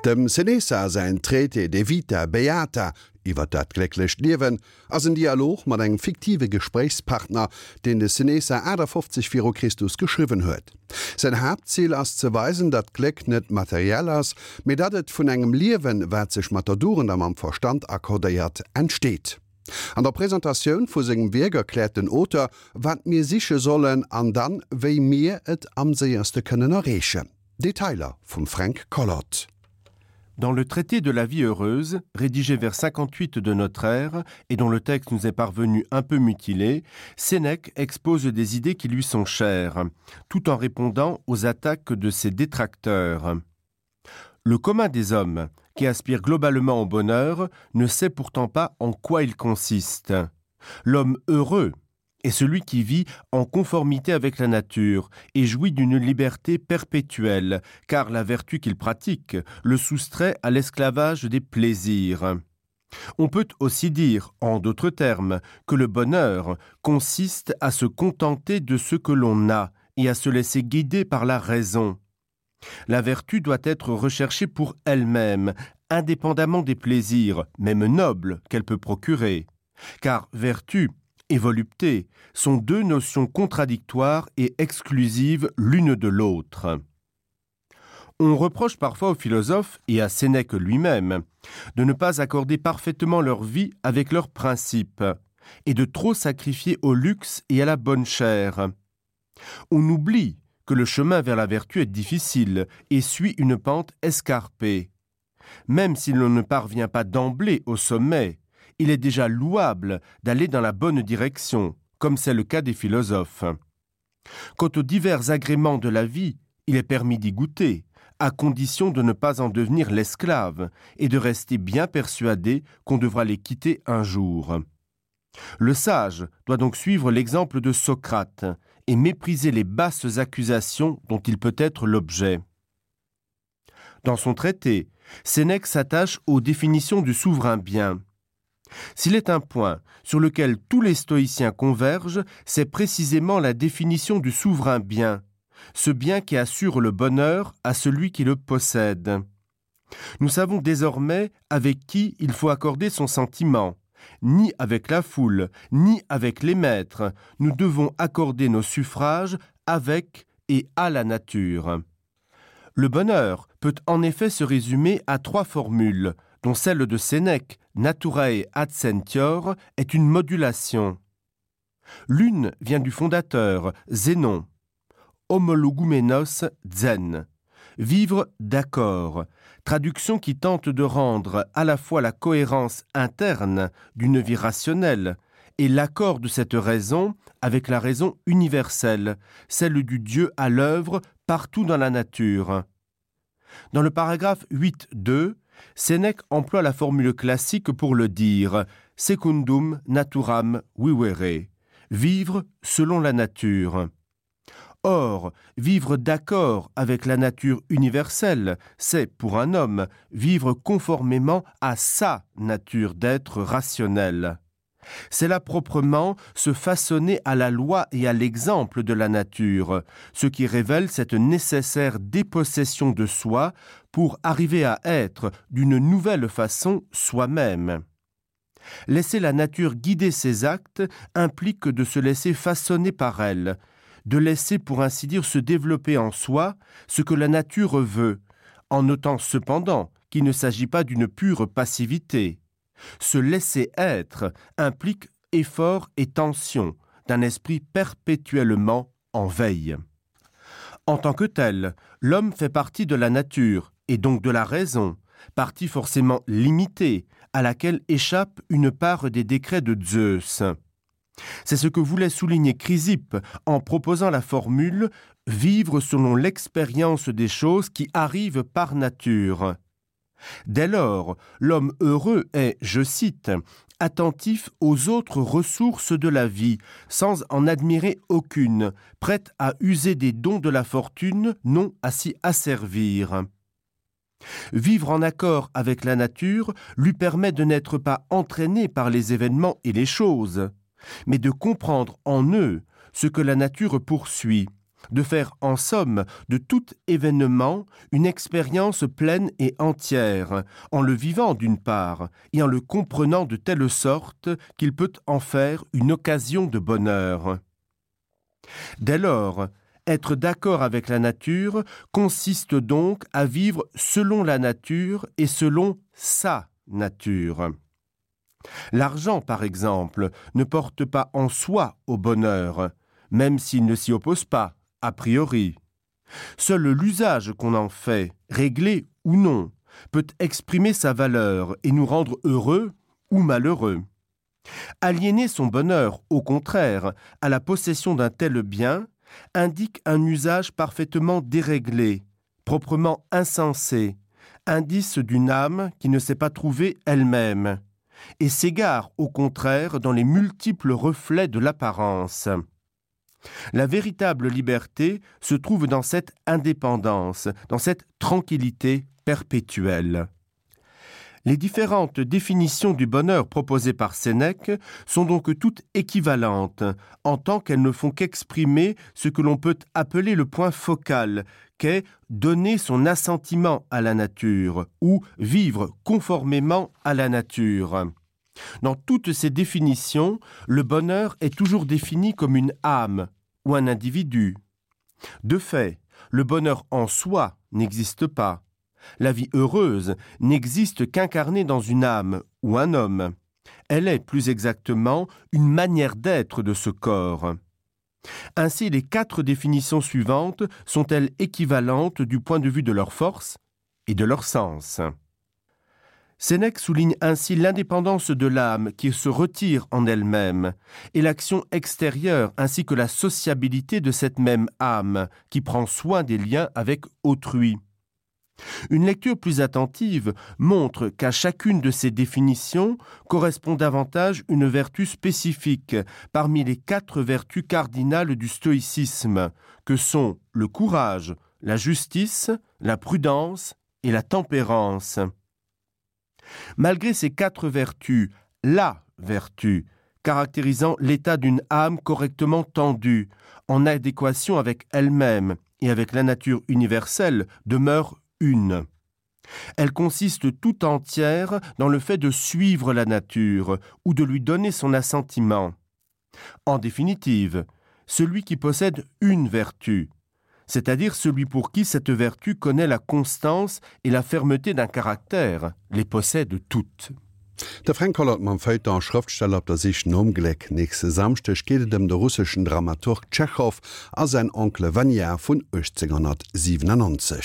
Dem Seneca säin Traité de vita beata, Iwwer dat glécklecht Liewen, ass en Dialog mat engem fiktive Gespréichspartner, deen de Seneca 58 viru Christus geschriwwen huet. Säin Haaptzil ass ze weisen, datt Gléck net materiell ass, mee datt et vun engem Liewen, wat sech mat der Dugend a mam Verstand accordéiert, entsteet. An der Presentatioun vu sengem Wierk erkläert den Auteur, wat mir siche sollen an dann, wéi mir et am séierste kënnen erreechen. Detailer vum Fränk Collot. Dans le traité de la vie heureuse, rédigé vers 58 de notre ère et dont le texte nous est parvenu un peu mutilé, Sénèque expose des idées qui lui sont chères, tout en répondant aux attaques de ses détracteurs. Le commun des hommes, qui aspire globalement au bonheur, ne sait pourtant pas en quoi il consiste. L'homme heureux est celui qui vit en conformité avec la nature et jouit d'une liberté perpétuelle, car la vertu qu'il pratique le soustrait à l'esclavage des plaisirs. On peut aussi dire, en d'autres termes, que le bonheur consiste à se contenter de ce que l'on a et à se laisser guider par la raison. La vertu doit être recherchée pour elle-même, indépendamment des plaisirs, même nobles, qu'elle peut procurer. Car vertu et volupté sont deux notions contradictoires et exclusives l'une de l'autre. On reproche parfois aux philosophes et à Sénèque lui-même de ne pas accorder parfaitement leur vie avec leurs principes et de trop sacrifier au luxe et à la bonne chère. On oublie que le chemin vers la vertu est difficile et suit une pente escarpée. Même si l'on ne parvient pas d'emblée au sommet, il est déjà louable d'aller dans la bonne direction, comme c'est le cas des philosophes. Quant aux divers agréments de la vie, il est permis d'y goûter, à condition de ne pas en devenir l'esclave et de rester bien persuadé qu'on devra les quitter un jour. Le sage doit donc suivre l'exemple de Socrate et mépriser les basses accusations dont il peut être l'objet. Dans son traité, Sénèque s'attache aux définitions du souverain bien. S'il est un point sur lequel tous les stoïciens convergent, c'est précisément la définition du souverain bien, ce bien qui assure le bonheur à celui qui le possède. Nous savons désormais avec qui il faut accorder son sentiment. Ni avec la foule, ni avec les maîtres, nous devons accorder nos suffrages avec et à la nature. Le bonheur peut en effet se résumer à trois formules, dont celle de Sénèque, Naturae adcentior, est une modulation. L'une vient du fondateur, Zénon, homologumenos zen, vivre d'accord, traduction qui tente de rendre à la fois la cohérence interne d'une vie rationnelle et l'accord de cette raison avec la raison universelle, celle du Dieu à l'œuvre partout dans la nature. Dans le paragraphe 8.2, Sénèque emploie la formule classique pour le dire secundum naturam vivere, vivre selon la nature. Or, vivre d'accord avec la nature universelle, c'est, pour un homme, vivre conformément à sa nature d'être rationnel. C'est là proprement se façonner à la loi et à l'exemple de la nature, ce qui révèle cette nécessaire dépossession de soi pour arriver à être, d'une nouvelle façon, soi-même. Laisser la nature guider ses actes implique de se laisser façonner par elle, de laisser pour ainsi dire se développer en soi ce que la nature veut, en notant cependant qu'il ne s'agit pas d'une pure passivité. Se laisser être implique effort et tension d'un esprit perpétuellement en veille. En tant que tel, l'homme fait partie de la nature et donc de la raison, partie forcément limitée à laquelle échappe une part des décrets de Zeus. C'est ce que voulait souligner Chrysippe en proposant la formule vivre selon l'expérience des choses qui arrivent par nature. Dès lors, l'homme heureux est, je cite, attentif aux autres ressources de la vie, sans en admirer aucune, prêt à user des dons de la fortune, non à s'y asservir. Vivre en accord avec la nature lui permet de n'être pas entraîné par les événements et les choses, mais de comprendre en eux ce que la nature poursuit. De faire en somme de tout événement une expérience pleine et entière, en le vivant d'une part et en le comprenant de telle sorte qu'il peut en faire une occasion de bonheur. Dès lors, être d'accord avec la nature consiste donc à vivre selon la nature et selon sa nature. L'argent, par exemple, ne porte pas en soi au bonheur, même s'il ne s'y oppose pas, a priori. Seul l'usage qu'on en fait, réglé ou non, peut exprimer sa valeur et nous rendre heureux ou malheureux. Aliéner son bonheur, au contraire, à la possession d'un tel bien, indique un usage parfaitement déréglé, proprement insensé, indice d'une âme qui ne s'est pas trouvée elle-même, et s'égare au contraire dans les multiples reflets de l'apparence. La véritable liberté se trouve dans cette indépendance, dans cette tranquillité perpétuelle. Les différentes définitions du bonheur proposées par Sénèque sont donc toutes équivalentes, en tant qu'elles ne font qu'exprimer ce que l'on peut appeler le point focal, qu'est donner son assentiment à la nature ou vivre conformément à la nature. Dans toutes ces définitions, le bonheur est toujours défini comme une âme ou un individu. De fait, le bonheur en soi n'existe pas. La vie heureuse n'existe qu'incarnée dans une âme ou un homme. Elle est plus exactement une manière d'être de ce corps. Ainsi les quatre définitions suivantes sont-elles équivalentes du point de vue de leur force et de leur sens. Sénèque souligne ainsi l'indépendance de l'âme qui se retire en elle-même et l'action extérieure ainsi que la sociabilité de cette même âme qui prend soin des liens avec autrui. Une lecture plus attentive montre qu'à chacune de ces définitions correspond davantage une vertu spécifique parmi les quatre vertus cardinales du stoïcisme, que sont le courage, la justice, la prudence et la tempérance. Malgré ces quatre vertus, la vertu, caractérisant l'état d'une âme correctement tendue, en adéquation avec elle-même et avec la nature universelle, demeure une. Elle consiste tout entière dans le fait de suivre la nature ou de lui donner son assentiment. En définitive, celui qui possède une vertu, c'est-à-dire celui pour qui cette vertu connaît la constance et la fermeté d'un caractère, les possède toutes. De Fränk Hollert mam Feuilleton Schrëftsteller op der Sich nom Gléck. Nächste Samschdeg geet et ëm de russeschen Dramaturg Tschechow a säin Oncle Vania vun 1897.